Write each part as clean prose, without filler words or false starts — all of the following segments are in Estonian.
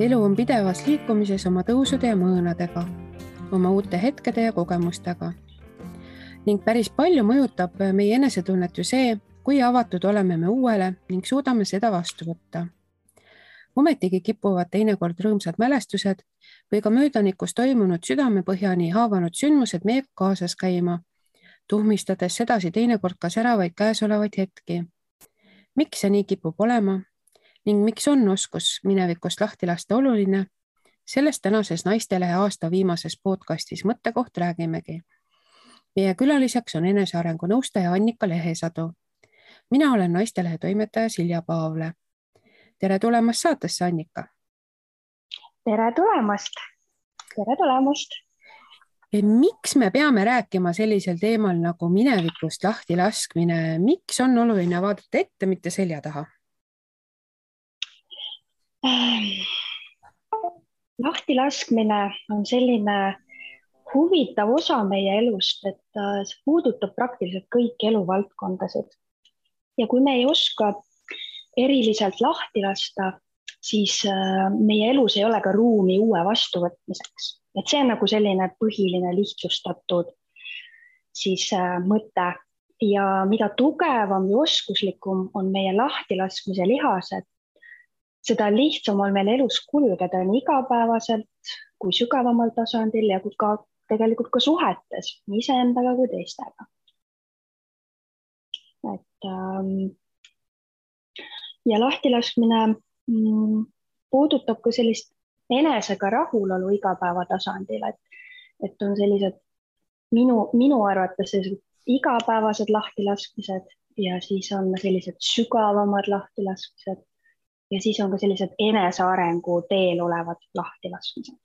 Elu on pidevas liikumises oma tõusude ja mõõnadega, oma uute hetkede ja kogemustega. Ning päris palju mõjutab meie enesetunnet ju see, kui avatud oleme me uuele ning suudame seda vastu võtta. Ometigi kipuvad teinekord rõõmsad mälestused või ka möödanikus toimunud südamepõhjani haavanud sündmused meiega kaasas käima, tuhmistades sedasi teinekord ka säravaid käesolevaid hetki. Miks see nii kipub olema ning miks on oskus minevikust lahti lasta oluline? Sellest tänases Naistelehe aasta viimases podcastis Mõttekoht räägimegi. Meie külaliseks on enesearengu nõustaja Annika Lehesadu. Mina olen Naistelehe toimetaja Silja Paavle. Tere tulemast saatesse, Annika. Tere tulemast. Tere tulemast. Miks me peame rääkima sellisel teemal nagu minevikust lahti laskmine? Miks on oluline vaadata ette, mitte selja taha? Lahti laskmine on selline huvitav osa meie elust, et see puudutab praktiliselt kõiki eluvaldkondasid. Ja kui me ei oska eriliselt lahti lasta, siis meie elus ei ole ka ruumi uue vastuvõtmiseks. Et see on nagu selline põhiline lihtsustatud siis mõte. Ja mida tugevam ja oskuslikum on meie lahtilaskmise lihased, seda lihtsam on meil elus kulgeda nii igapäevaselt kui sügavamal tasandil ja ka tegelikult ka suhetes nii iseendaga kui teistega. Ja lahtilaskmine puudutab ka sellist enesega rahulolu igapäeva tasandil, et on sellised minu arvates sellised igapäevased lahtilaskmised ja siis on sellised sügavamad lahtilaskmised ja siis on ka sellised enesearengu teel olevad lahtilaskmised.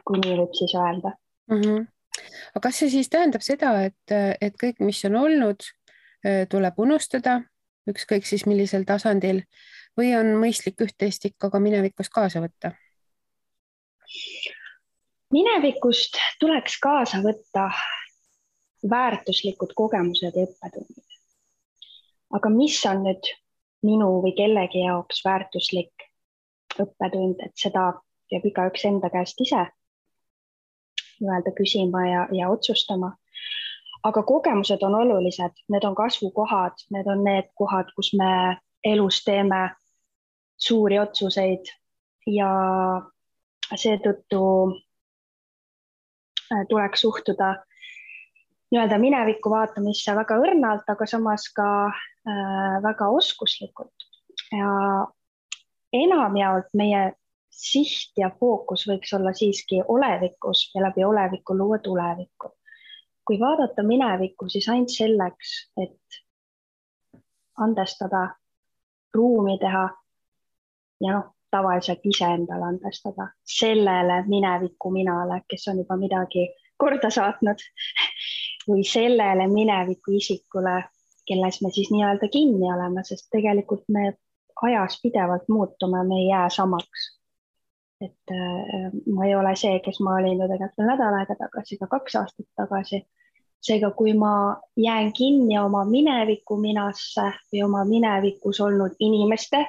Kui nii võib siis öelda. Aga kas see siis tähendab seda, et kõik, mis on olnud, tuleb unustada, ükskõik siis millisel tasandil, või on mõistlik üht-teist ikka ka minevikust kaasa võtta? Minevikust tuleks kaasa võtta väärtuslikud kogemused ja õppetundid. Aga mis on nüüd minu või kellegi jaoks väärtuslik õppetund, et seda peab igaüks enda käest ise küsima ja otsustama. Aga kogemused on olulised, need on kasvukohad, need on need kohad, kus me elus teeme suuri otsuseid ja seetõttu tuleks suhtuda minevikku vaatamisse väga õrnalt, aga samas ka väga oskuslikult. Ja enamjaolt meie siht ja fookus võiks olla siiski olevikus ja läbi oleviku luua tulevikku. Kui vaadata minevikku, siis ainult selleks, et andestada, ruumi teha ja tavaliselt iseendale andestada sellele mineviku minale, kes on juba midagi korda saatnud või sellele mineviku isikule, kelles me siis nii-öelda kinni oleme, sest tegelikult me ajas pidevalt muutume, me ei jää samaks. Et ma ei ole see, kes ma olin tegelikult nädal aega tagasi, ka 2 aastat tagasi. Seega, kui ma jään kinni oma mineviku minasse või oma minevikus olnud inimeste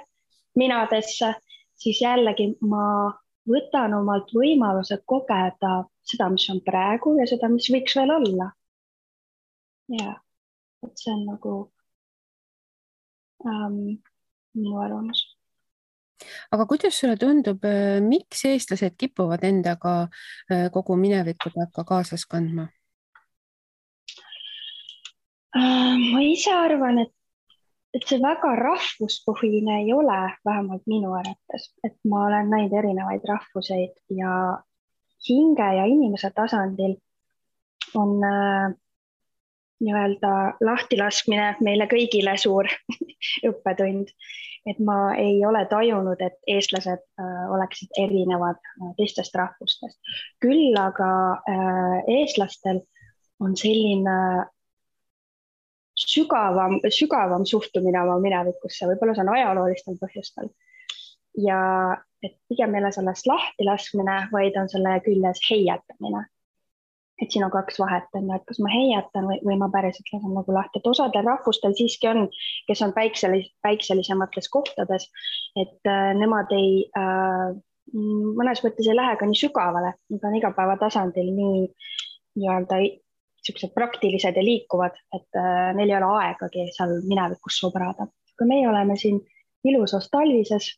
minadesse, siis jällegi ma võtan omalt võimaluse kogeda seda, mis on praegu ja seda, mis võiks veel olla. Ja, et see on nagu minu arvamus. Aga kuidas sulle tundub, miks eestlased kipuvad endaga kogu minevikudega kaasas kandma? Ma ise arvan, et see väga rahvuspõhine ei ole, vähemalt minu arvates, et ma olen näinud erinevaid rahvuseid ja hinge ja inimese tasandil on lahtilaskmine meile kõigile suur õppetund. Et ma ei ole tajunud, et eestlased oleksid erinevad teistest rahvustest. Küll aga eestlastel on selline sügavam suhtumine oma minevikusse, võib-olla see on ajaloolistel põhjustel. Ja et pigem meile sellest lahtilaskmine, vaid on selle küljes heietamine. et siin on kaks vahet, on ju, et kas ma heietan või ma päriselt lasen nagu lahti, et osadel rahvustel siiski on, kes on päikselisemates kohtades, et nemad ei, mõnes mõttes ei lähe ka nii sügavale, nad on igapäevatasandil nii-öelda niisugused praktilised ja liikuvad, et neil ei ole aegagi seal minevikus sobrada. Kui meie oleme siin ilusas talvises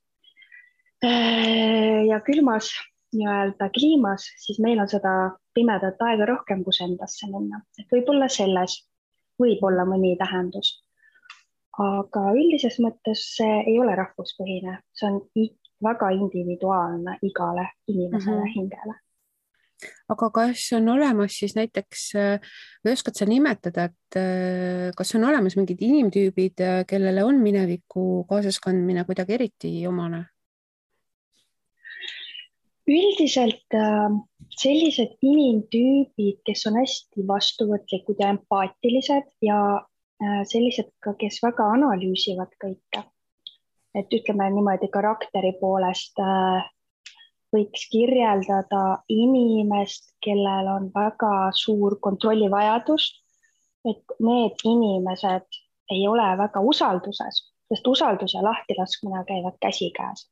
ja külmas nii-öelda kliimas, siis meil on seda pimedat aega rohkem, kus endasse minna. Et võib-olla selles võib olla mõni tähendus. Aga üldises mõttes see ei ole rahvuspõhine, see on väga individuaalne igale inimesele hingele. Aga kas on olemas siis näiteks, või oskad sa nimetada, et kas on olemas mingid inimtüübid, kellele on mineviku kaasaskandmine kuidagi eriti omane? Üldiselt sellised inimtüübid, kes on hästi vastuvõtlikud ja empaatilised ja sellised ka, kes väga analüüsivad kõike. Et ütleme niimoodi karakteri poolest võiks kirjeldada inimest, kellel on väga suur kontrollivajadus, et need inimesed ei ole väga usalduses, sest usaldus ja lahtilaskmine käivad käsikäes.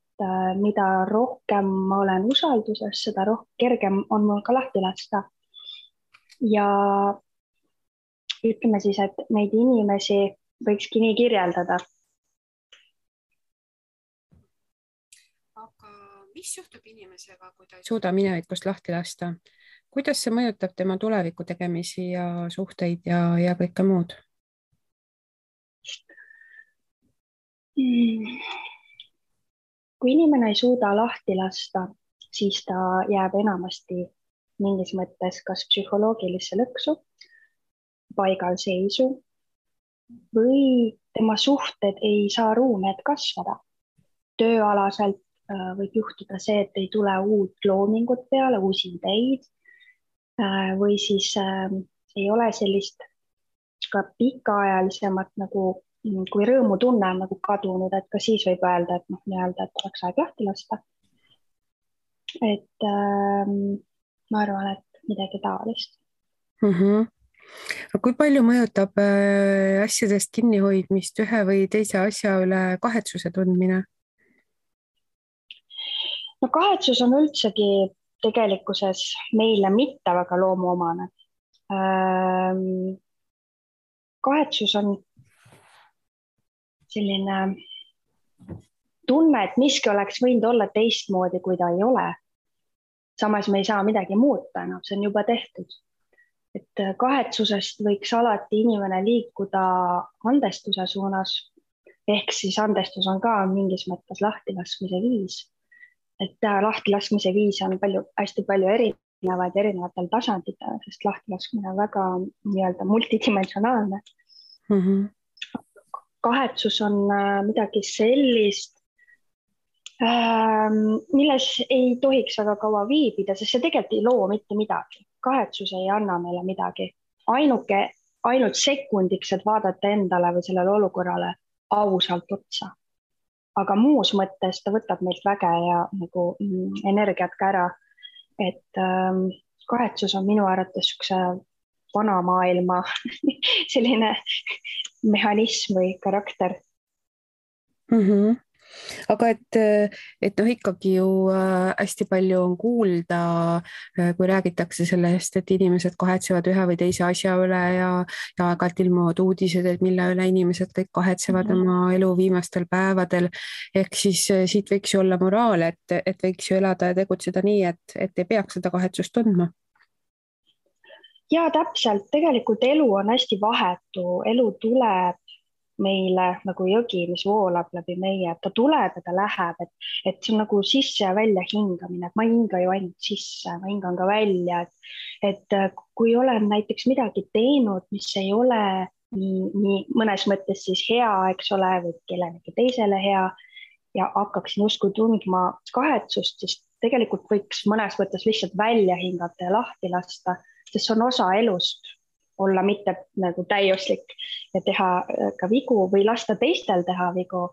Mida rohkem ma olen usalduses, seda kergem on mul ka lahti lasta. Ja ütleme siis, et neid inimesi võikski nii kirjeldada. Aga mis juhtub inimesega, kui ta ei suuda minevikust lahti lasta? Kuidas see mõjutab tema tuleviku tegemisi ja suhteid ja kõike muud? Kui inimene ei suuda lahti lasta, siis ta jääb enamasti mingis mõttes kas psühholoogilisse lõksu, paigalseisu või tema suhted ei saa ruumi, et kasvada. Tööalaselt võib juhtuda see, et ei tule uut loomingut peale, uusi ideid või siis ei ole sellist ka pikaajalisemat nagu, kui rõõmutunne on nagu kadunud, et ka siis võib öelda, et nii-öelda, et oleks aeg lahti lasta. Et ma arvan, et midagi taolist. Kui palju mõjutab asjadest kinnihoidmist ühe või teise asja üle kahetsuse tundmine? No kahetsus on üldsegi tegelikkuses meile mitte väga loomuomane. Kahetsus on selline tunne, et miski oleks võinud olla teistmoodi, kui ta ei ole. Samas me ei saa midagi muuta, see on juba tehtud. Et kahetsusest võiks alati inimene liikuda andestuse suunas, ehk siis andestus on ka mingis mõttes lahtilaskmise viis. Et lahtilaskmise viis on hästi palju erinevatel tasanditel, sest lahtilaskmine on väga nii-öelda multidimensionaalne. Kahetsus on midagi sellist, milles ei tohiks väga kaua viibida, sest see tegelikult ei loo mitte midagi. Kahetsus ei anna meile midagi. Ainult sekundiks, et vaadata endale või sellele olukorrale ausalt otsa. Aga muus mõttes ta võtab meilt väge ja nagu energiat ka ära. Et kahetsus on minu arvates üks vana maailma selline mehhanism või karakter. Aga et ikkagi ju hästi palju on kuulda, kui räägitakse sellest, et inimesed kahetsevad ühe või teise asja üle ja aeg-ajalt ilmuvad uudised, et mille üle inimesed kõik kahetsevad oma elu viimastel päevadel. Ehk siis siit võiks ju olla moraal, et võiks ju elada ja tegutseda nii, et ei peaks seda kahetsust tundma. Ja täpselt, tegelikult elu on hästi vahetu, elu tuleb meile nagu jõgi, mis voolab läbi meie, ta tuleb ja ta läheb, et see on nagu sisse ja välja hingamine, et ma ei hinga ju ainult sisse, ma hingan ka välja, et kui olen näiteks midagi teinud, mis ei ole nii mõnes mõttes siis hea, eks ole, või kellelegi teisele hea ja hakkaksin usku tundma kahetsust, siis tegelikult võiks mõnes mõttes lihtsalt välja hingata ja lahti lasta, sest see on osa elust. Olla mitte nagu täiuslik ja teha ka vigu või lasta teistel teha vigu.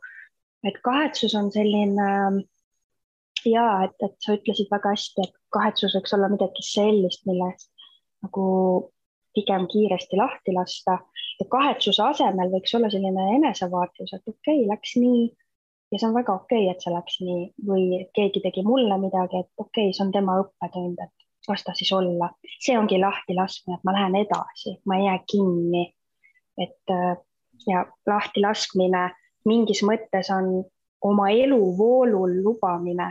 Et kahetsus on selline, et sa ütlesid väga hästi, et kahetsus võiks olla midagi sellist, millest nagu pigem kiiresti lahti lasta ja kahetsuse asemel võiks olla selline enesevaatlus, et okei, läks nii ja see on väga okei, et see läks nii või keegi tegi mulle midagi, et okei, see on tema õppetund, et las ta siis olla. See ongi lahti laskmine, et ma lähen edasi, ma ei jää kinni, et ja lahti laskmine mingis mõttes on oma eluvoolul lubamine,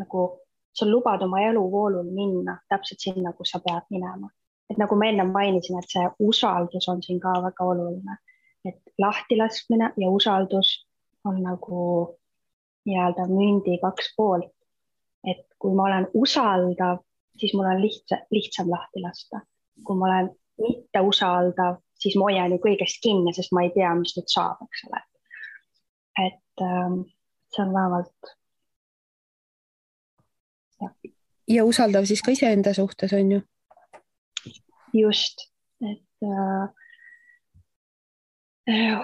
nagu sa lubad oma eluvoolul minna täpselt sinna, kus sa pead minema. Et nagu ma enne mainisin, et see usaldus on siin ka väga oluline, et lahti laskmine ja usaldus on nagu nii-öelda mündi kaks poolt. Et kui ma olen usaldav, siis mul on lihtsam lahti lasta. Kui ma olen mitte usaldav, siis ma hoian ju kõigest kinni, sest ma ei tea, mis nüüd saab, eks ole. Et see on vähemalt. Ja usaldav siis ka iseenda suhtes on ju? Just, et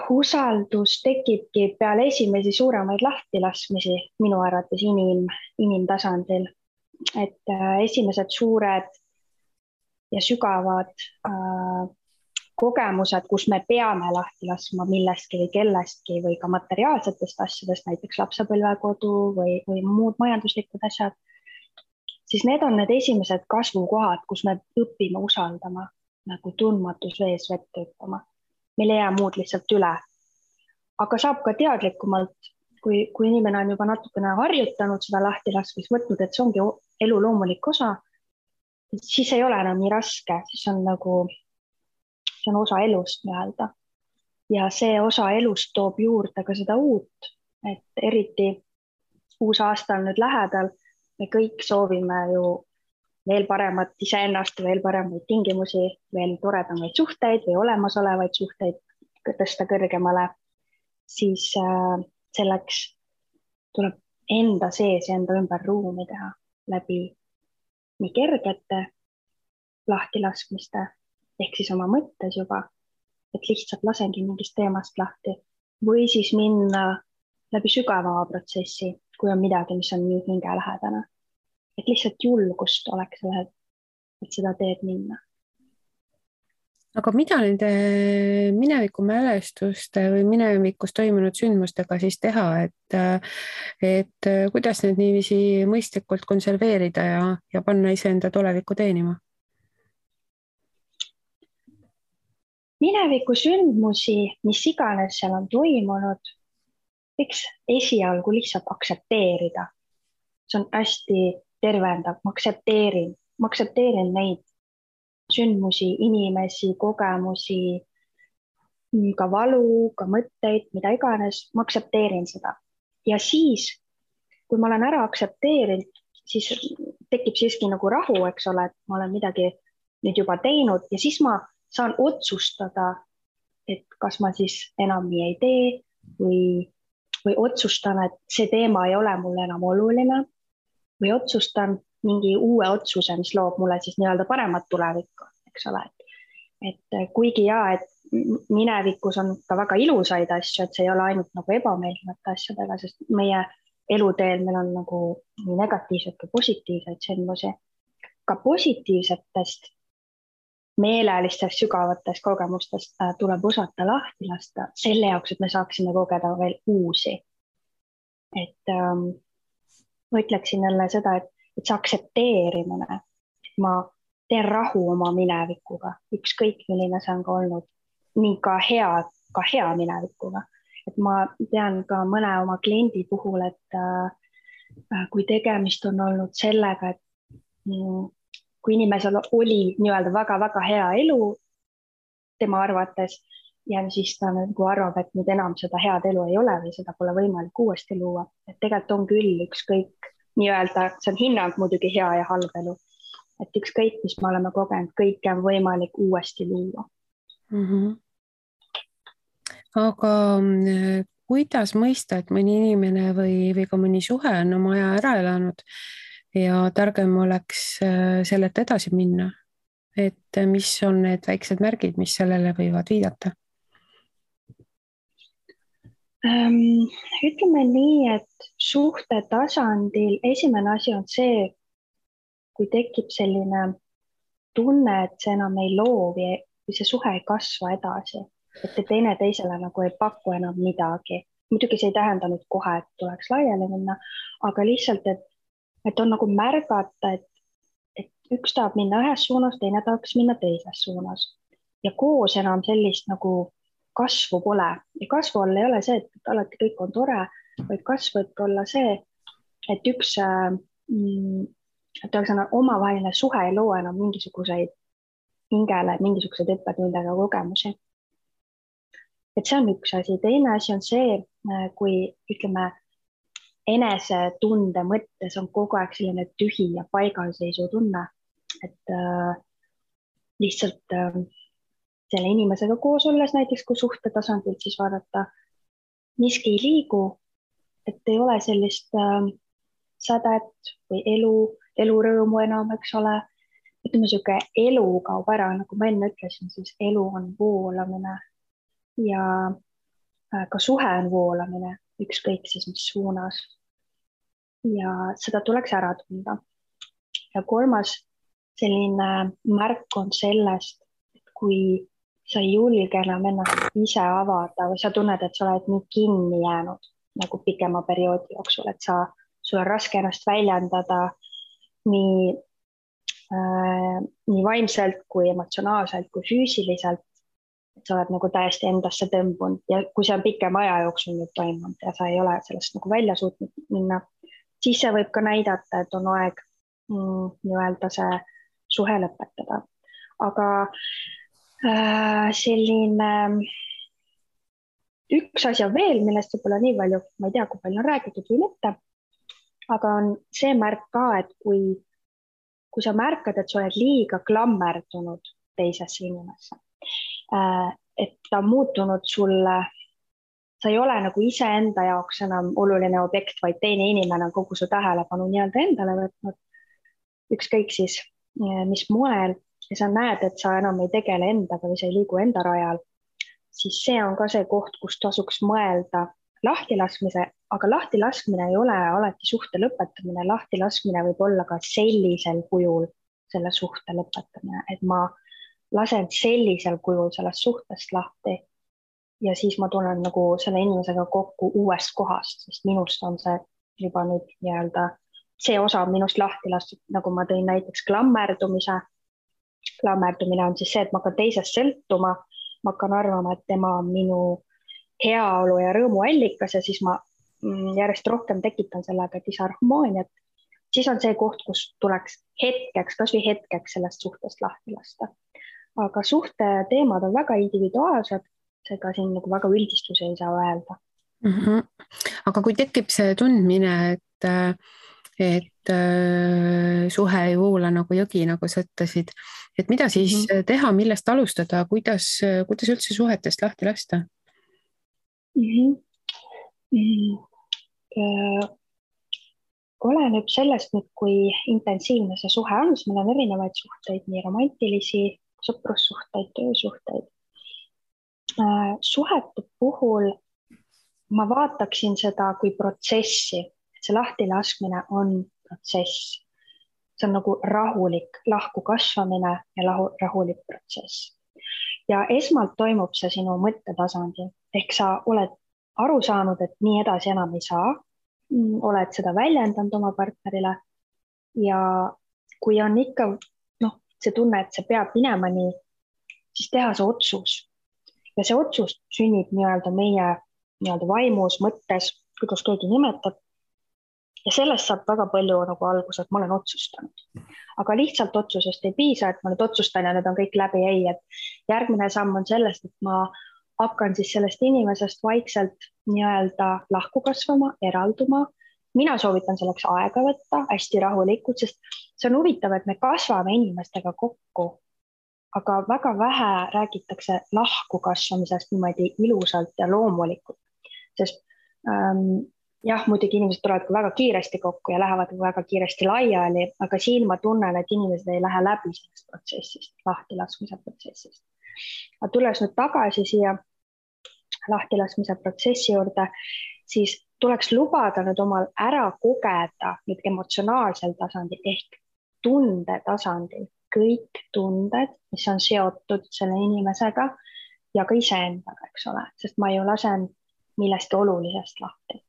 usaldus tekibki peale esimesi suuremaid lahtilaskmisi minu arvates inimtasandil. Et esimesed suured ja sügavad kogemused, kus me peame lahti laskma millestki või kellestki või ka materiaalsetest asjadest, näiteks lapsepõlvekodu või muud majanduslikud asjad, siis need on need esimesed kasvukohad, kus me õpime usaldama, nagu tundmatus vees vett hüppama. Meil ei jää muud lihtsalt üle. Aga saab ka teadlikumalt, kui inimene on juba natukene harjutanud seda lahtilaskmist, võtnud, et see ongi elu loomulik osa, siis ei ole enam nii raske, siis on nagu, see on osa elust nii-öelda. Ja see osa elust toob juurde ka seda uut, et eriti uus aasta on nüüd lähedal, me kõik soovime ju veel paremat iseennast, veel paremaid tingimusi, veel toredamaid suhteid või olemasolevaid suhteid tõsta kõrgemale, siis selleks tuleb enda sees ja enda ümber ruumi teha läbi nii kergete lahtilaskmiste, ehk siis oma mõttes juba, et lihtsalt lasengi mingist teemast lahti või siis minna läbi sügavama protsessi, kui on midagi, mis on nii hingelähedane. Et lihtsalt julgust oleks sellel, et seda teed minna. Aga mida nende mineviku mälestuste või minevikus toimunud sündmustega siis teha, et kuidas need niiviisi mõistlikult konserveerida ja panna iseenda tulevikku teenima? Mineviku sündmusi, mis iganes seal on toimunud, võiks esialgu lihtsalt aktsepteerida. See on hästi tervendav, ma aktsepteerin neid sündmusi, inimesi, kogemusi, ka valu, ka mõtteid, mida iganes, ma aktsepteerin seda. Ja siis, kui ma olen ära aktsepteerinud, siis tekib siiski nagu rahu, eks ole, et ma olen midagi nüüd juba teinud ja siis ma saan otsustada, et kas ma siis enam nii ei tee või otsustan, et see teema ei ole mulle enam oluline või otsustan mingi uue otsuse, mis loob mulle siis nii-öelda paremat tulevikku, eks ole. Et kuigi et minevikus on ka väga ilusaid asju, et see ei ole ainult nagu ebameeldivate asjadega, sest meie eluteel meil on nagu nii negatiivseid kui positiivseid sündmusi. Ka positiivsetest meelelistest sügavatest kogemustest tuleb osata lahti lasta selle jaoks, et me saaksime kogeda veel uusi. Et ma ütleksin jälle seda, et see aktsepteerimine, et ma teen rahu oma minevikuga, ükskõik milline see on ka olnud, nii ka hea minevikuga. Et ma tean ka mõne oma kliendi puhul, et kui tegemist on olnud sellega, et kui inimesel oli nii-öelda väga-väga hea elu tema arvates ja siis ta nagu arvab, et nüüd enam seda head elu ei ole või seda pole võimalik uuesti luua. Et tegelikult on küll ükskõik nii-öelda, see on hinnang muidugi hea ja halb elu. Et ükskõik, mis me oleme kogenud, kõike on võimalik uuesti luua. Aga kuidas mõista, et mõni inimene või ka mõni suhe on oma aja ära elanud ja targem oleks sellelt edasi minna, et mis on need väiksed märgid, mis sellele võivad viidata? Ütleme nii, et suhte tasandil esimene asi on see, kui tekib selline tunne, et see enam ei loovi või see suhe ei kasva edasi, et te teine teisele nagu ei paku enam midagi. Muidugi see ei tähenda nüüd kohe, et tuleks laiali minna, aga lihtsalt, et on nagu märgata, et üks tahab minna ühes suunas, teine tahaks minna teises suunas. Ja koos enam sellist nagu kasvu pole. Ja kasvu all ei ole see, et alati kõik on tore, vaid kasv võib olla see, et üks omavaheline suhe ei loo enam mingisuguseid hingele, mingisuguseid õppetundega kogemusi. Et see on üks asi. Teine asi on see, kui ütleme, enesetunde mõttes on kogu aeg selline tühi ja paigalseisu tunne, et lihtsalt selle inimesega koos olles näiteks, kui suhte tasandilt siis vaadata, miski ei liigu, et ei ole sellist sädet või elurõõmu enam, eks ole. Ütleme, siuke elu kaob ära, nagu ma enne ütlesin, siis elu on voolamine ja ka suhe on voolamine, ükskõik siis mis suunas. Ja seda tuleks ära tunda. Ja kolmas selline märk on sellest, et kui sa ei julge enam ennast ise avada või sa tunned, et sa oled nii kinni jäänud nagu pikema perioodi jooksul, et sul on raske ennast väljendada nii vaimselt kui emotsionaalselt kui füüsiliselt, et sa oled nagu täiesti endasse tõmbunud ja kui see on pikema aja jooksul nüüd toimunud ja sa ei ole sellest nagu välja suutnud minna, siis see võib ka näidata, et on aeg nii-öelda see suhe lõpetada. Aga selline üks asi on veel, millest võib-olla nii palju, ma ei tea, kui palju on räägitud või mitte, aga on see märk ka, et kui sa märkad, et sa oled liiga klammerdunud teisesse inimesse, et ta on muutunud sulle, sa ei ole nagu iseenda jaoks enam oluline objekt, vaid teine inimene on kogu su tähelepanu nii-öelda endale võtnud, ükskõik siis mis moel, ja sa näed, et sa enam ei tegele endaga või sa ei liigu enda rajal, siis see on ka see koht, kus tasuks mõelda lahtilaskmise, aga lahtilaskmine ei ole alati suhte lõpetamine, lahtilaskmine võib olla ka sellisel kujul selle suhte lõpetamine, et ma lasen sellisel kujul sellest suhtest lahti ja siis ma tulen nagu selle inimesega kokku uuest kohast, sest minust on see juba nüüd nii-öelda see osa minust lahti lastud, nagu ma tõin näiteks klammerdumise. Klammerdumine on siis see, et ma hakkan teisest sõltuma, ma hakkan arvama, et tema on minu heaolu ja rõõmu allikas ja siis ma järjest rohkem tekitan sellega disharmooniat. Siis on see koht, kus tuleks hetkeks, kas või hetkeks sellest suhtest lahti lasta. Aga suhte teemad on väga individuaalsed, seega siin nagu väga üldistusi ei saa öelda. Aga kui tekib see tundmine, et suhe ei voola nagu jõgi, nagu sa ütlesid, et mida siis teha, millest alustada, kuidas üldse suhetest lahti lasta? Oleneb sellest nüüd, kui intensiivne see suhe on, siis meil on erinevaid suhteid, nii romantilisi, sõprussuhteid, töösuhteid. Suhete puhul ma vaataksin seda kui protsessi, et see lahtilaskmine on protsess. See on nagu rahulik lahku kasvamine ja rahulik protsess. Ja esmalt toimub see sinu mõttetasandil, ehk sa oled aru saanud, et nii edasi enam ei saa, oled seda väljendanud oma partnerile ja kui on ikka see tunne, et see peab minema nii, siis teha see otsus. Ja see otsus sünnib nii-öelda meie vaimus, mõttes, kuidas keegi nimetab. Ja sellest saab väga palju nagu algus, et ma olen otsustanud. Aga lihtsalt otsusest ei piisa, et ma nüüd otsustan ja need on kõik läbi, ei. Et järgmine samm on sellest, et ma hakkan siis sellest inimesest vaikselt nii-öelda lahku kasvama, eralduma. Mina soovitan selleks aega võtta, hästi rahulikult, sest see on huvitav, et me kasvame inimestega kokku, aga väga vähe räägitakse lahku kasvamisest niimoodi ilusalt ja loomulikult. Sest muidugi inimesed tulevad väga kiiresti kokku ja lähevad väga kiiresti laiali, aga siin ma tunnen, et inimesed ei lähe läbi sellest protsessist, lahtilaskmise protsessist. Aga tulles nüüd tagasi siia lahtilaskmise protsessi juurde, siis tuleks lubada nüüd omal ära kogeda nüüd emotsionaalsel tasandil ehk tunde tasandil kõik tunded, mis on seotud selle inimesega ja ka iseendaga, eks ole, sest ma ju lasen millestki olulisest lahti.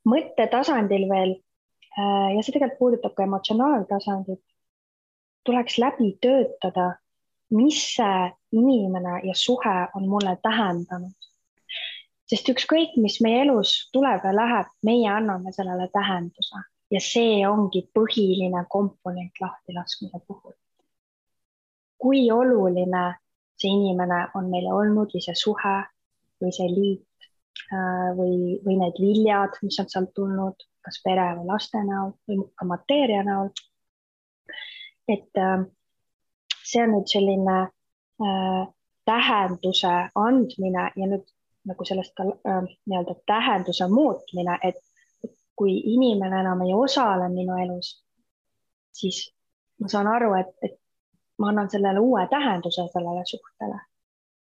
Mõttetasandil veel, ja see tegelikult puudutab ka emotsionaaltasandit, tuleks läbi töötada, mis see inimene ja suhe on mulle tähendanud. Sest ükskõik, mis meie elus tuleb ja läheb, meie anname sellele tähenduse ja see ongi põhiline komponent lahtilaskmise puhul. Kui oluline see inimene on meile olnud või see suhe või see liit või need viljad, mis on sealt tulnud, kas pere või laste näol või ka mateeria näol. Et see on nüüd selline tähenduse andmine ja nüüd nagu sellest ka nii-öelda tähenduse muutmine, et kui inimene enam ei osale minu elus, siis ma saan aru, et ma annan sellele uue tähenduse sellele suhtele.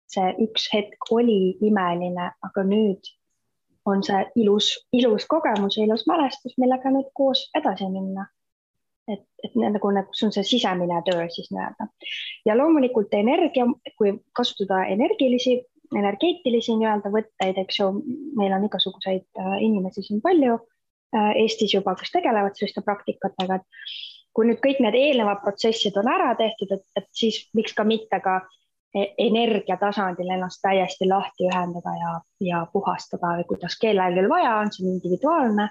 See üks hetk oli imeline, aga nüüd on see ilus kogemus ja ilus mälestus, millega nüüd koos edasi minna. Et nagu see on see sisemine töö siis nii-öelda. Ja loomulikult energia, kui kasutada energeetilisi nii-öelda võtteid, eks ju, meil on igasuguseid inimesi siin palju Eestis juba, kes tegelevad selliste praktikatega, et kui nüüd kõik need eelnevad protsessid on ära tehtud, et siis miks ka mitte ka energiatasandil ennast täiesti lahti ühendada ja puhastada või kuidas kellelgi vaja on, see individuaalne,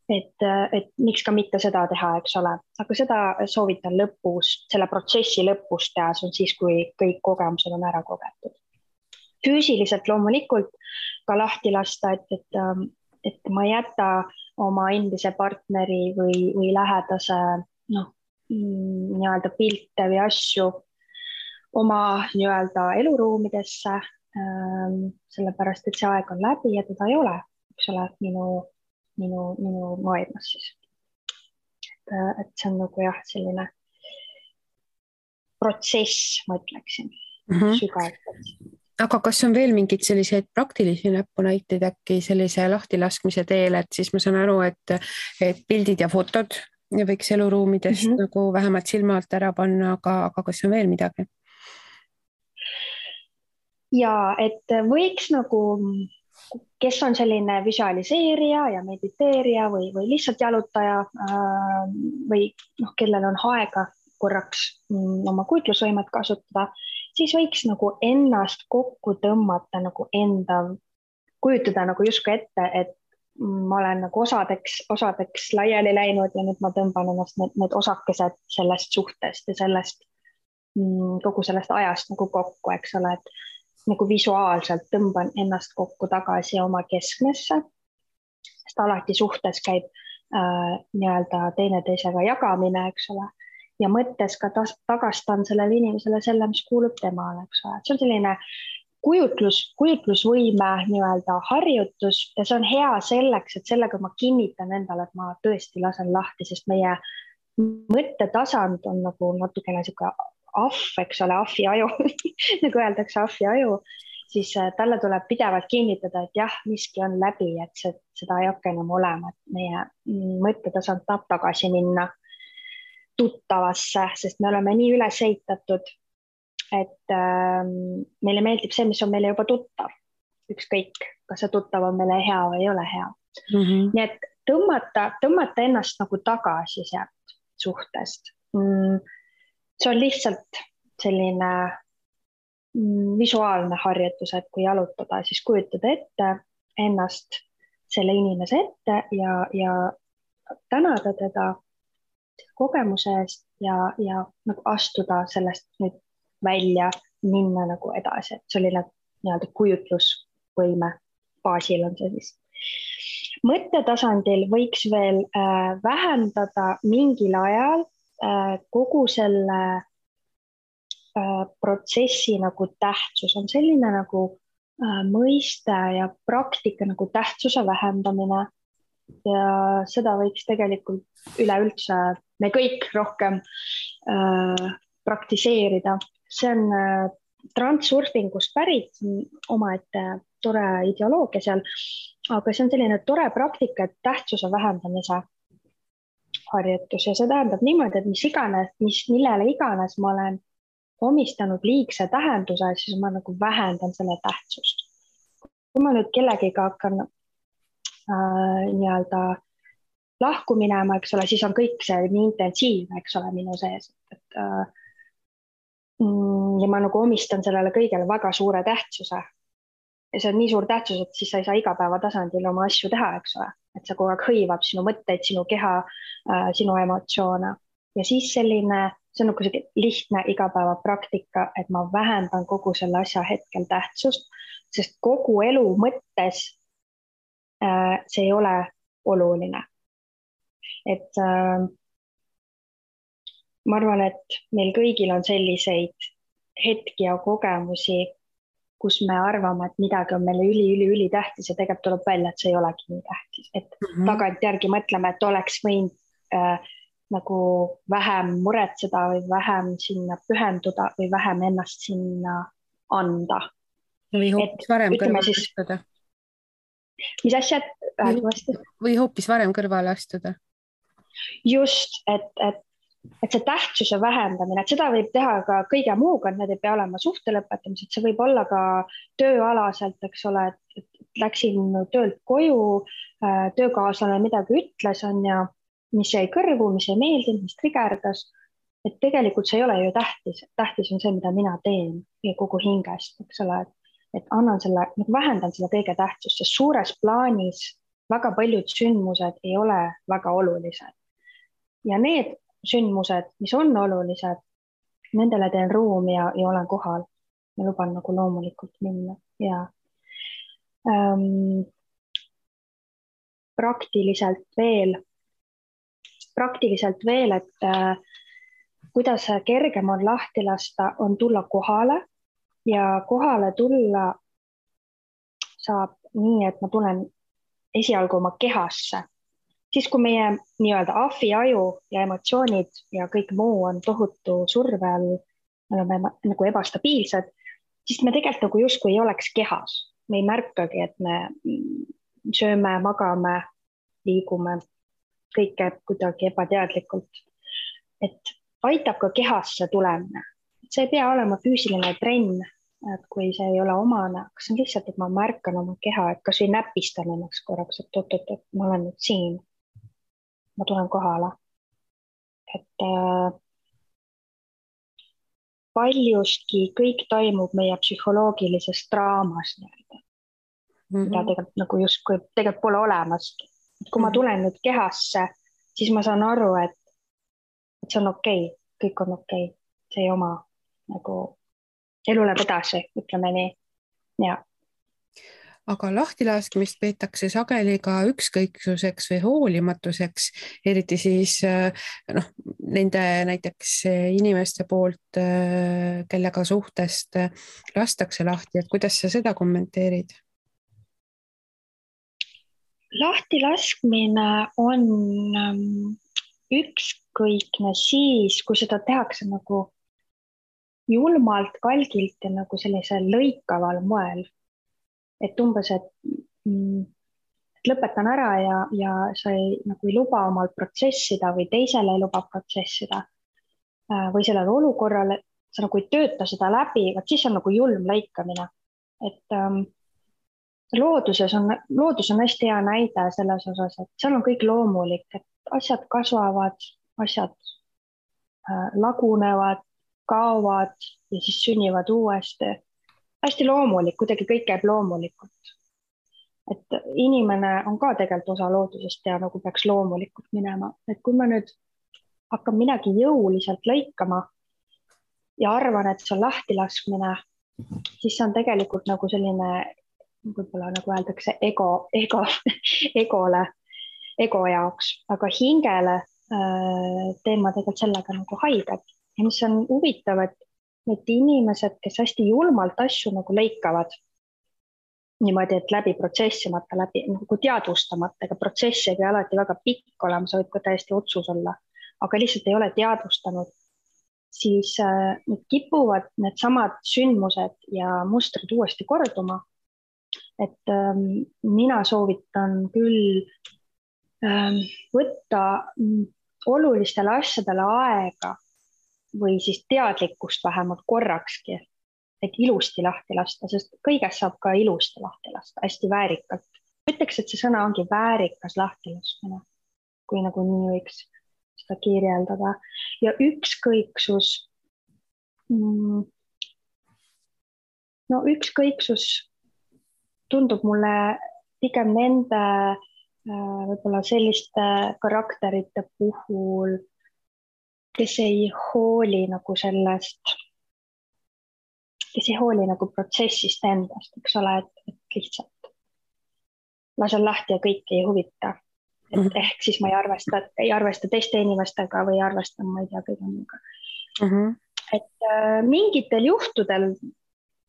et miks ka mitte seda teha, eks ole, aga seda soovitan lõpus, selle protsessi lõpus teha, see on siis, kui kõik kogemused on ära kogetud. Füüsiliselt loomulikult ka lahti lasta, et ma ei jäta oma endise partneri või lähedase nii-öelda pilte või asju oma nii-öelda eluruumidesse, sellepärast, et see aeg on läbi ja teda ei ole, eks ole, minu maailmas siis. Et see on nagu jah, selline protsess, ma ütleksin, sügavalt. Aga kas on veel mingid selliseid praktilisi näpunäiteid äkki sellise lahtilaskmise teel, et siis ma saan aru, et pildid ja fotod võiks eluruumidest nagu vähemalt silma alt ära panna, aga kas on veel midagi? Ja, et võiks nagu, kes on selline visualiseerija ja mediteerija või lihtsalt jalutaja või kellel on aega korraks oma kujutlusvõimet kasutada, siis võiks nagu ennast kokku tõmmata nagu kujutada nagu justkui ette, et ma olen nagu osadeks laiali läinud ja nüüd ma tõmban ennast need osakesed sellest suhtest ja sellest kogu sellest ajast nagu kokku, eks ole, et nagu visuaalselt tõmban ennast kokku tagasi oma keskmesse, sest alati suhtes käib nii-öelda teineteisega jagamine, eks ole, ja mõttes ka tagastan sellele inimesele selle, mis kuulub temale, eks ole. See on selline kujutlusvõime nii-öelda harjutus ja see on hea selleks, et sellega ma kinnitan endale, et ma tõesti lasen lahti, sest meie mõttetasand on nagu natukene siuke eks ole, ahvi aju, nagu öeldakse ahvi aju, siis talle tuleb pidevalt kinnitada, et jah, miski on läbi, et seda ei hakka enam olema, et meie mõttetasand tahab tagasi minna tuttavasse, sest me oleme nii üles ehitatud, et meile meeldib see, mis on meile juba tuttav. Ükskõik, kas see tuttav on meile hea või ei ole hea. Nii et tõmmata ennast nagu tagasi sealt suhtest. See on lihtsalt selline visuaalne harjutus, et kui jalutada, siis kujutada ette ennast selle inimese ette ja tänada teda kogemuse eest ja nagu astuda sellest nüüd välja, minna nagu edasi, et selline nii-öelda kujutlusvõime baasil on see siis. Mõttetasandil võiks veel vähendada mingil ajal kogu selle protsessi nagu tähtsus on selline nagu mõiste ja praktika nagu tähtsuse vähendamine ja seda võiks tegelikult üleüldse me kõik rohkem praktiseerida. See on transurfingust pärit omaette tore ideoloogia seal, aga see on selline tore praktika, et tähtsuse vähendamise harjutus ja see tähendab niimoodi, et millele iganes ma olen omistanud liigse tähenduse, siis ma nagu vähendan selle tähtsust. Kui ma nüüd kellegiga hakkan nii-öelda lahku minema, eks ole, siis on kõik see nii intensiivne, eks ole, minu sees, et ja ma nagu omistan sellele kõigele väga suure tähtsuse. Ja see on nii suur tähtsus, et siis sa ei saa igapäeva tasandil oma asju teha, eks ole, et see kogu aeg hõivab sinu mõtteid, sinu keha, sinu emotsioone. Ja siis see on nagu lihtne igapäeva praktika, et ma vähendan kogu selle asja hetkel tähtsust, sest kogu elu mõttes see ei ole oluline. Et ma arvan, et meil kõigil on selliseid hetki ja kogemusi, kus me arvame, et midagi on meile üli tähtis ja tegelikult tuleb välja, et see ei olegi nii tähtis. Et tagantjärgi mõtleme, et oleks võinud nagu vähem muretseda või vähem sinna pühenduda või vähem ennast sinna anda. Või hoopis varem kõrvale astuda. Mis asjad? Või hoopis varem kõrvale astuda. Just, et see tähtsuse vähendamine, et seda võib teha ka kõige muuga, et need ei pea olema suhte lõpetamised, see võib olla ka tööalaselt, eks ole, et läksin töölt koju, töökaaslane midagi ütles, on ja mis jäi kõrvu, mis ei meeldinud, mis trigerdas, et tegelikult see ei ole ju tähtis. Tähtis on see, mida mina teen kogu hingest, eks ole, et vähendan selle kõige tähtsust, sest suures plaanis väga paljud sündmused ei ole väga olulised. Ja need sündmused, mis on olulised, nendele teen ruumi ja olen kohal ja luban nagu loomulikult minna. Ja praktiliselt veel, et kuidas kergem on lahti lasta, on tulla kohale ja kohale tulla saab nii, et ma tulen esialgu oma kehasse. Siis kui meie nii-öelda ahviaju ja emotsioonid ja kõik muu on tohutu surve all, me oleme nagu ebastabiilsed, siis me tegelikult nagu justkui ei oleks kehas. Me ei märkagi, et me sööme, magame, liigume, kõik käib kuidagi ebateadlikult. Et aitab ka kehasse tulemine. See ei pea olema füüsiline trenn, et kui see ei ole omane, aga see on lihtsalt, et ma märkan oma keha, et kas või näpistan ennast korraks, et ma olen nüüd siin. Ma tulen kohale. Et paljustki kõik toimub meie psühholoogilises draamas, mida tegelikult nagu justkui tegelikult pole olemas. Et kui ma tulen nüüd kehasse, siis ma saan aru, et see on okei, kõik on okei. See ei oma nagu elu läheb edasi, ütleme nii. Ja. Aga lahtilaskmist peetakse sageli ka ükskõiksuseks või hoolimatuseks, eriti siis nende näiteks inimeste poolt, kellega suhtest lastakse lahti, et kuidas sa seda kommenteerid? Lahtilaskmine on ükskõikne siis, kui seda tehakse nagu julmalt, kalgilt ja nagu sellisel lõikaval moel. Et umbes, et lõpetan ära ja sa ei luba omal protsessida või teisele ei luba protsessida või sellele olukorrale, sa nagu ei tööta seda läbi, siis on nagu julm lõikamine. Et loodus on hästi hea näide selles osas, et seal on kõik loomulik, et asjad kasvavad, asjad lagunevad, kaovad ja siis sünnivad uuesti. Hästi loomulik, kuidagi kõik käib loomulikult. Et inimene on ka tegelikult osa loodusest ja nagu peaks loomulikult minema. Et kui ma nüüd hakkan midagi jõuliselt lõikama ja arvan, et see on lahtilaskmine, siis see on tegelikult nagu selline, võib-olla nagu öeldakse, ego jaoks, aga hingele teema tegelikult sellega nagu haiget. Ja mis on huvitav, et need inimesed, kes hästi julmalt asju nagu lõikavad, niimoodi, et läbi protsessimata, läbi nagu teadvustamata, ega protsess ei pea alati väga pikk olema, see võib ka täiesti otsus olla, aga lihtsalt ei ole teadvustanud, siis need kipuvad need samad sündmused ja mustrid uuesti korduma. Et mina soovitan küll võtta olulistele asjadele aega või siis teadlikkust vähemalt korrakski, et ilusti lahti lasta, sest kõigest saab ka ilusti lahti lasta, hästi väärikalt. Ütleks, et see sõna ongi väärikas lahtilaskmine, kui nagu nii võiks seda kirjeldada. Ja ükskõiksus, no ükskõiksus tundub mulle pigem nende võib-olla selliste karakterite puhul, kes ei hooli nagu sellest, kes ei hooli nagu protsessist endast, eks ole, et lihtsalt lasen lahti ja kõiki ei huvita. Et ehk siis ma ei arvesta teiste inimestega või arvestan, ma ei tea, kõige muuga. Et mingitel juhtudel,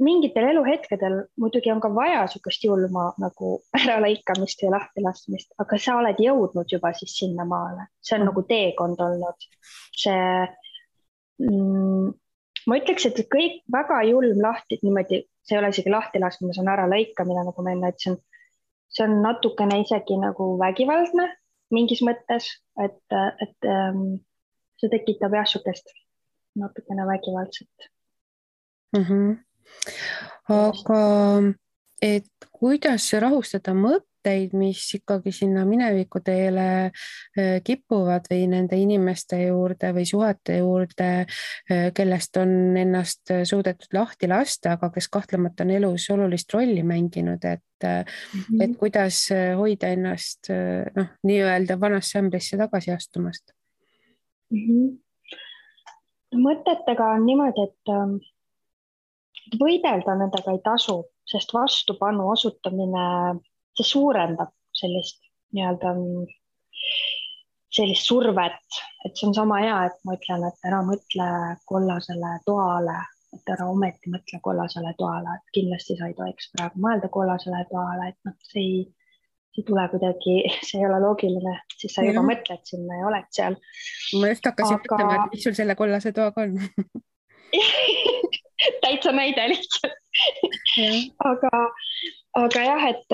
mingitel eluhetkedel muidugi on ka vaja sukest julma nagu äralõikamist ja lahtilaskmist, aga sa oled jõudnud juba siis sinna maale. See on nagu teekond olnud. Ma ütleks, et kõik väga julm lahti, niimoodi, see ei ole isegi lahtilaskmine, see on äralõikamine, nagu ma enne ütlesin. See on natukene isegi nagu vägivaldne mingis mõttes, et see tekitab jah sukest natukene vägivaldset. Aga et kuidas rahustada mõtteid, mis ikkagi sinna mineviku teele kipuvad või nende inimeste juurde või suhete juurde, kellest on ennast suudetud lahti lasta, aga kes kahtlemata on elus olulist rolli mänginud, et kuidas hoida ennast nii-öelda vanasse ämbrisse tagasi astumast? Mõtetega on niimoodi, et võidelda nendega ei tasu, sest vastupanu osutamine, see suurendab sellist nii-öelda sellist survet, et see on sama hea, et ma ütlen, et ära mõtle kollasele toale, et ära ometi mõtle kollasele toale, et kindlasti sa ei tohiks praegu mõelda kollasele toale, et see ei tule kuidagi, see ei ole loogiline, siis sa juba mõtled sinna ja oled seal. Ma just hakkasin mõtlema, et mis sul selle kollase toaga on. Täitsa näide lihtsalt. Aga jah, et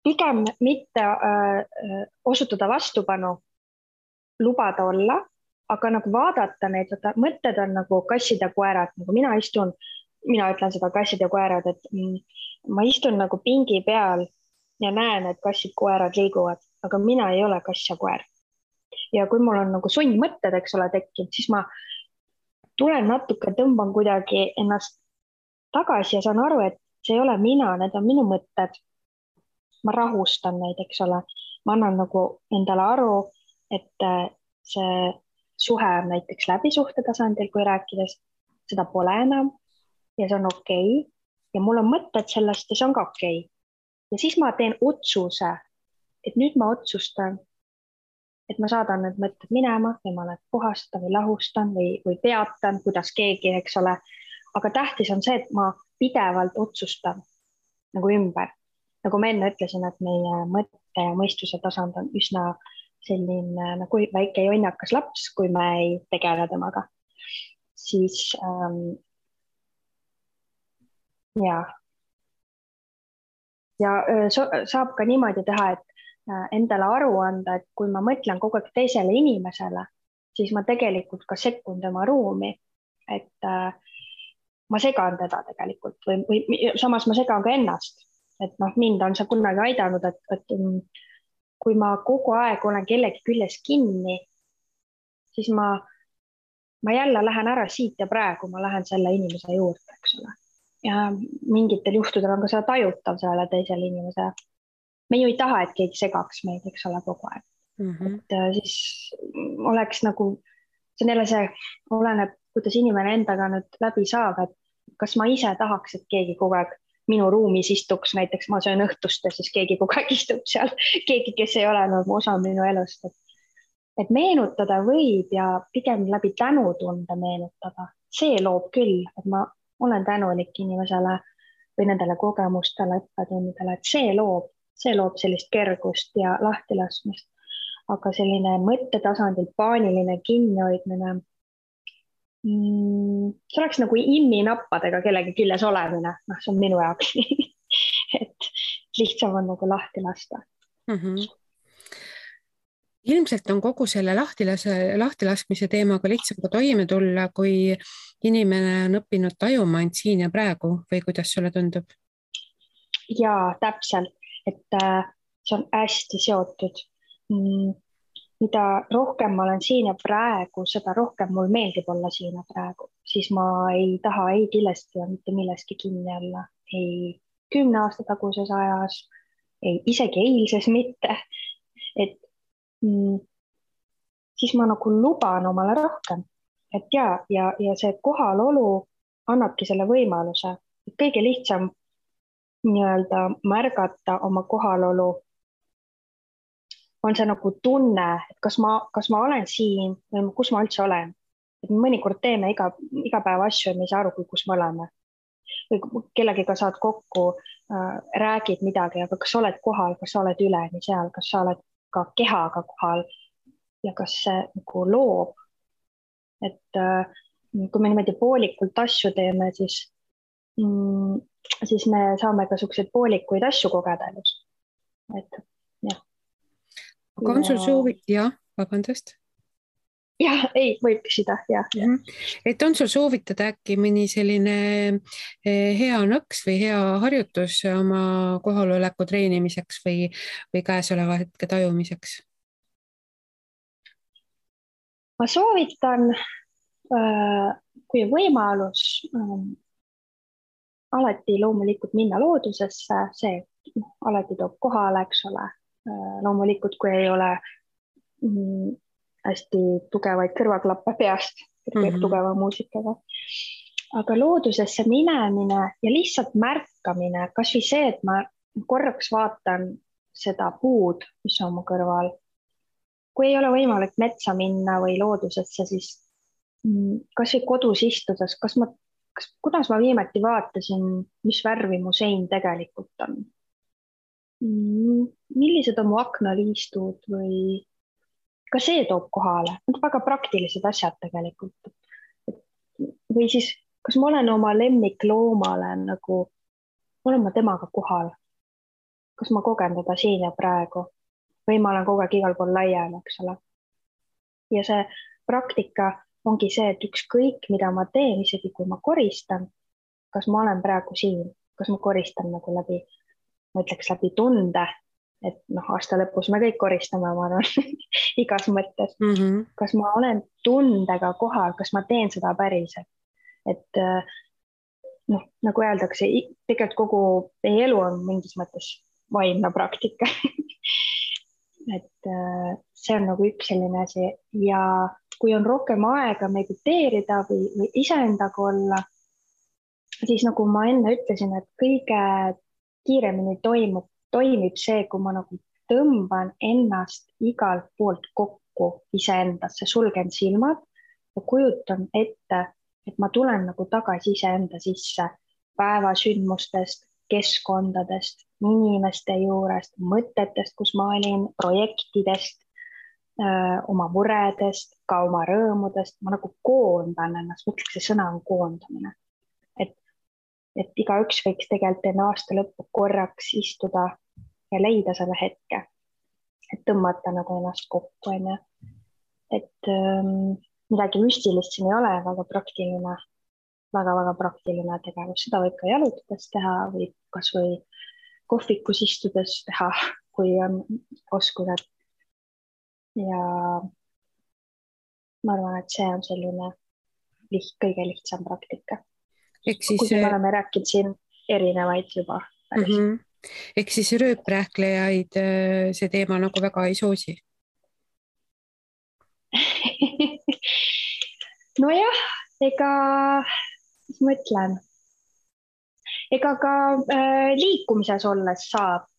pigem mitte osutada vastupanu, lubada olla, aga nagu vaadata neid, mõtted on nagu kassid ja koerad, nagu mina ütlen seda kassid ja koerad, et ma istun nagu pingi peal ja näen, et kassid koerad liiguvad, aga mina ei ole kass ja koer. Ja kui mul on nagu sundmõtted, eks ole, tekkinud, siis ma tulen natuke, tõmban kuidagi ennast tagasi ja saan aru, et see ei ole mina, need on minu mõtted. Ma rahustan neid, eks ole. Ma annan nagu endale aru, et see suhe on näiteks läbisuhte tasandil, kui rääkides, seda pole enam ja see on okei. Ja mul on mõtted sellest ja see on ka okei. Ja siis ma teen otsuse, et nüüd ma otsustan, et ma saadan need mõtted minema või ma need puhastan või lahustan või peatan, kuidas keegi, eks ole. Aga tähtis on see, et ma pidevalt otsustan nagu ümber. Nagu ma enne ütlesin, et meie mõtte ja mõistuse tasand on üsna selline nagu väike jonnakas laps, kui me ei tegele temaga. Siis ja saab ka niimoodi teha, et endale aru anda, et kui ma mõtlen kogu aeg teisele inimesele, siis ma tegelikult ka sekkun tema ruumi, et ma segan teda tegelikult või samas ma segan ka ennast, et mind on see kunagi aidanud, et kui ma kogu aeg olen kellegi küljes kinni, siis ma jälle lähen ära siit ja praegu ma lähen selle inimese juurde, eks ole. Ja mingitel juhtudel on ka seda tajutav selle teisele inimesele. Me ju ei taha, et keegi segaks meid, eks ole, kogu aeg. Et siis oleks nagu, see on jälle see, oleneb, kuidas inimene endaga nüüd läbi saab, et kas ma ise tahaks, et keegi kogu aeg minu ruumis istuks, näiteks ma söön õhtust ja siis keegi kogu aeg istub seal, keegi, kes ei ole nagu osa minu elust. Et meenutada võib ja pigem läbi tänutunde meenutada. See loob küll, et ma olen tänulik inimesele või nendele kogemustele, õppetundidele, et see loob sellist kergust ja lahtilaskmist. Aga selline mõttetasandil paaniline kinnihoidmine, see oleks nagu imminappadega kellegi küljes olemine. See on minu jaoks. Et lihtsam on nagu lahti lasta. ilmselt on kogu selle lahtilaskmise teemaga lihtsam ka toime tulla, kui inimene on õppinud tajuma end siin ja praegu või kuidas sulle tundub? Jaa, täpselt, et see on hästi seotud. Mida rohkem ma olen siin ja praegu, seda rohkem mul meeldib olla siin ja praegu. Siis ma ei taha ei kindlasti ja mitte milleski kinni olla. Ei 10 aasta taguses ajas, ei isegi eilses mitte. Et siis ma nagu luban omale rohkem. Et ja see kohalolu annabki selle võimaluse. Kõige lihtsam nii-öelda märgata oma kohalolu on see nagu tunne, et kas ma olen siin või kus ma üldse olen. Et mõnikord teeme iga päev asju ja me ei saa aru, kus me oleme. Või kellegiga saad kokku, räägid midagi, aga kas sa oled kohal, kas sa oled üleni seal, kas sa oled ka kehaga kohal ja kas see nagu loob. Et kui me niimoodi poolikult asju teeme, siis me saame ka selliseid poolikuid asju kogeda elus. Et jah. Aga on sul soovi? Jah, vabandust. Jah, ei, võib küsida, jah. Et on sul soovitada äkki mõni selline hea nõks või hea harjutus oma kohaloleku treenimiseks või käesoleva hetke tajumiseks? Ma soovitan, kui võimalus, alati loomulikult minna loodusesse, see alati toob kohale, eks ole. Loomulikult, kui ei ole hästi tugevaid kõrvaklappe peast, tugeva muusikaga. Aga loodusesse minemine ja lihtsalt märkamine, kas või see, et ma korraks vaatan seda puud, mis on mu kõrval. Kui ei ole võimalik metsa minna või loodusesse, siis kas või kodus istudes, kuidas ma viimati vaatasin, mis värvi mu sein tegelikult on? Millised on mu aknaliistud või ka see toob kohale. Need on väga praktilised asjad tegelikult. Või siis, kas ma olen oma lemmikloomale nagu, olen ma temaga kohal? Kas ma kogen teda siin ja praegu? Või ma olen kogu aeg igal pool laial, eks ole? Ja see praktika ongi see, et ükskõik, mida ma teen, isegi kui ma koristan, kas ma olen praegu siin, kas ma koristan nagu läbi tunde, et aasta lõpus me kõik koristame, ma arvan, igas mõttes. Kas ma olen tundega kohal, kas ma teen seda päriselt? Et nagu öeldakse, tegelikult kogu elu on mingis mõttes vaimne praktika. Et see on nagu üks selline asi ja kui on rohkem aega mediteerida või iseendaga olla, siis nagu ma enne ütlesin, et kõige kiiremini toimib see, kui ma nagu tõmban ennast igalt poolt kokku iseendasse, sulgen silmad ja kujutan ette, et ma tulen nagu tagasi iseenda sisse päevasündmustest, keskkondadest, inimeste juurest, mõtetest, kus ma olin, projektidest, oma muredest, ka oma rõõmudest. Ma nagu koondan ennast, mõtleks, see sõna on koondamine. Et igaüks võiks tegelikult enne aasta lõppu korraks istuda ja leida selle hetke, et tõmmata nagu ennast kokku. Et midagi müstilist siin ei ole, väga praktiline, väga praktiline tegevus. Seda võib ka jalutades teha või kas või kohvikus istudes teha, kui on oskused. Ja ma arvan, et see on selline kõige lihtsam praktika. Kui me oleme rääkinud siin erinevaid juba. Ehk siis rööprähklejaid see teema nagu väga ei soosi? Nojah, mis ma ütlen, ega ka liikumises olles saab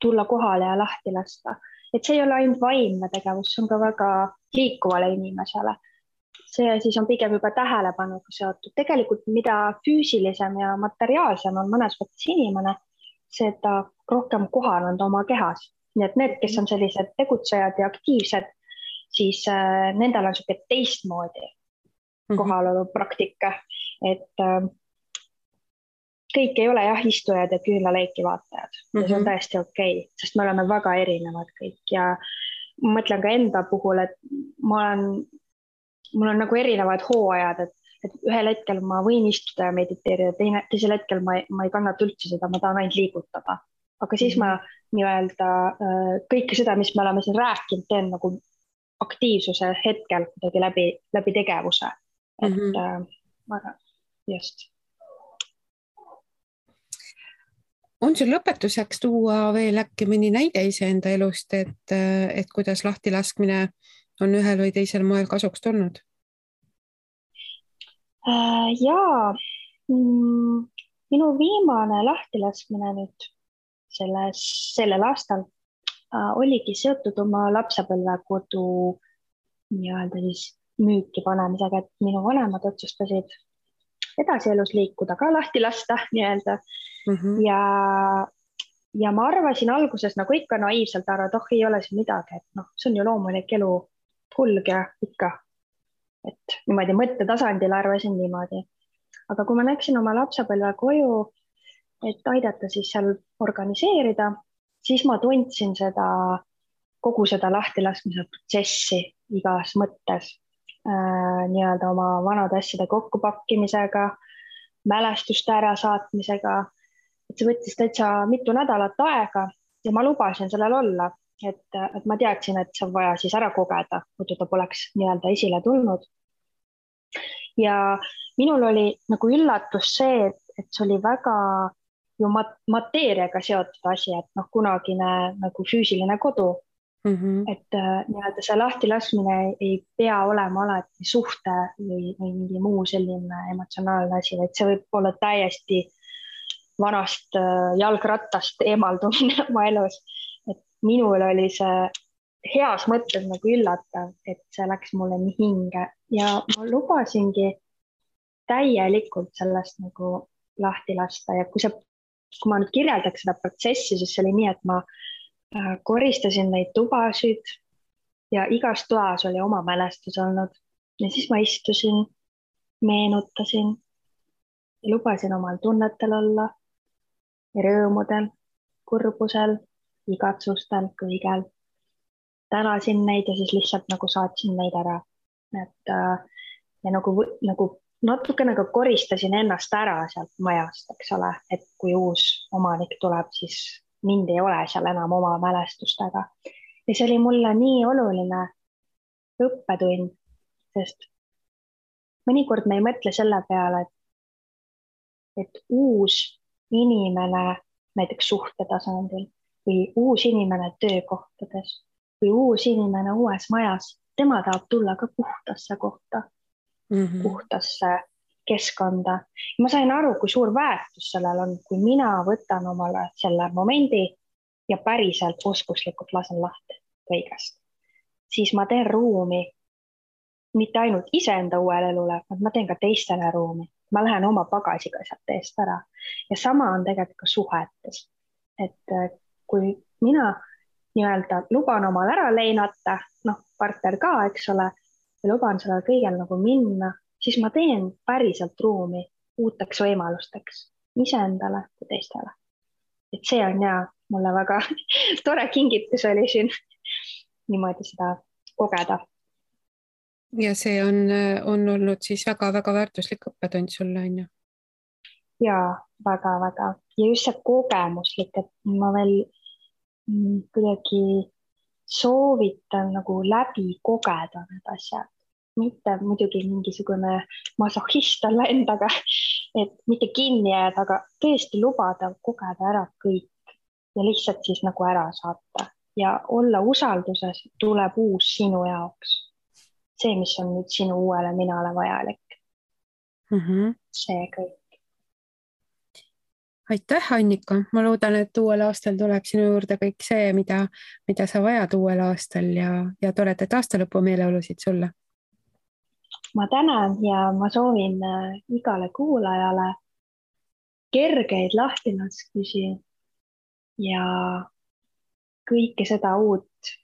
tulla kohale ja lahti lasta. Et see ei ole ainult vaimne tegevus, see on ka väga liikuvale inimesele. See siis on pigem juba tähelepanuga seotud. Tegelikult mida füüsilisem ja materiaalsem on mõnes mõttes inimene, seda rohkem kohal on ta oma kehas. Nii et need, kes on sellised tegutsejad ja aktiivsed, siis nendel on selline teistmoodi kohalolu praktika. Et kõik ei ole jah istujad ja küünlaleiki vaatajad ja see on täiesti okei, sest me oleme väga erinevad kõik ja ma mõtlen ka enda puhul, et mul on nagu erinevad hooajad, et ühel hetkel ma võin istuda ja mediteerida, teisel hetkel ma ei kannata üldse seda, ma tahan ainult liigutada. Aga siis ma nii-öelda kõike seda, mis me oleme siin rääkinud, teen nagu aktiivsuse hetkel kuidagi läbi tegevuse. Et just. On sul lõpetuseks tuua veel äkki mõni näide iseenda elust, et kuidas lahtilaskmine on ühel või teisel moel kasuks tulnud? Jaa, minu viimane lahtilaskmine nüüd sellel aastal oligi seotud oma lapsepõlvekodu nii-öelda siis müüki panemisega, et minu vanemad otsustasid edasi elus liikuda, ka lahti lasta nii-öelda. Ja ma arvasin alguses nagu ikka naiivselt ära, et ei ole siin midagi, et see on ju loomulik elu kulg ja ikka. Et niimoodi mõttetasandil arvasin niimoodi. Aga kui ma läksin oma lapsepõlve koju, et aidata siis seal organiseerida, siis ma tundsin kogu seda lahtilaskmise protsessi igas mõttes. Nii-öelda oma vanade asjade kokkupakkimisega, mälestuste ärasaatmisega. Et see võttis täitsa mitu nädalat aega ja ma lubasin sellel olla, et ma teadsin, et see on vaja siis ära kogeda, muidu ta poleks nii-öelda esile tulnud. Ja minul oli nagu üllatus see, et see oli väga ju mateeriaga seotud asi, et kunagine nagu füüsiline kodu. Et nii-öelda see lahtilaskmine ei pea olema alati suhte või mingi muu selline emotsionaalne asi, et see võib olla täiesti vanast jalgrattast eemaldumine oma elus. Et minul oli see heas mõttes nagu üllatav, et see läks mulle nii hinge ja ma lubasingi täielikult sellest nagu lahti lasta ja kui ma nüüd kirjeldaks seda protsessi, siis see oli nii, et ma koristasin neid tubasid ja igas toas oli oma mälestus olnud ja siis ma istusin, meenutasin ja lubasin omal tunnetel olla ja rõõmudel, kurbusel, igatsustel, kõigel. Tänasin neid ja siis lihtsalt nagu saatsin neid ära. Ja nagu natukene ka koristasin ennast ära sealt majast, eks ole, et kui uus omanik tuleb, siis mind ei ole seal enam oma mälestustega. Ja see oli mulle nii oluline õppetund, sest mõnikord me ei mõtle selle peale, et uus inimene näiteks suhtetasandil või uus inimene töökohtades või uus inimene uues majas, tema tahab tulla ka puhtasse kohta, puhtasse keskkonda. Ma sain aru, kui suur väärtus sellel on, kui mina võtan omale selle momendi ja päriselt oskuslikult lasen lahti kõigest. Siis ma teen ruumi mitte ainult iseenda uuele elule, vaid ma teen ka teistele ruumi. Ma lähen oma pagasiga sealt eest ära. Ja sama on tegelikult ka suhetes. Et kui mina nii-öelda luban omal ära leinata, partner ka, eks ole, ja luban sellel kõigel nagu minna, siis ma teen päriselt ruumi uuteks võimalusteks iseendale ja teistele. Et see on mulle väga tore kingitus oli siin niimoodi seda kogeda. Ja see on olnud siis väga-väga väärtuslik õppetund sulle, on ju? Jaa, väga-väga. Ja just see kogemuslik, et ma veel kuidagi soovitan nagu läbi kogeda need asjad. Mitte muidugi mingisugune masohhist olla endaga, et mitte kinni jääda, aga tõesti lubada kogeda ära kõik ja lihtsalt siis nagu ära saata ja olla usalduses, tuleb uus sinu jaoks. See, mis on nüüd sinu uuele minale vajalik. See kõik. Aitäh, Annika. Ma loodan, et uuel aastal tuleb sinu juurde kõik see, mida sa vajad uuel aastal ja toredat aastalõpu meeleolusid sulle. Ma tänan ja ma soovin igale kuulajale kergeid lahtilaskmisi ja kõike seda uut,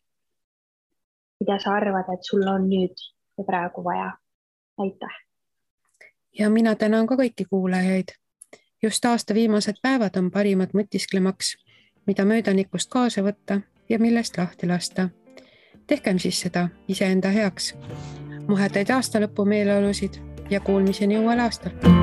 mida sa arvad, et sul on nüüd ja praegu vaja. Aitäh! Ja mina tänan ka kõiki kuulajaid just aasta viimased päevad on parimad mõtisklemaks, mida möödanikust kaasa võtta ja millest lahti lasta. Tehkem siis seda iseenda heaks. Muhedaid aastalõpu meeleolusid ja kuulmiseni uuel aastal.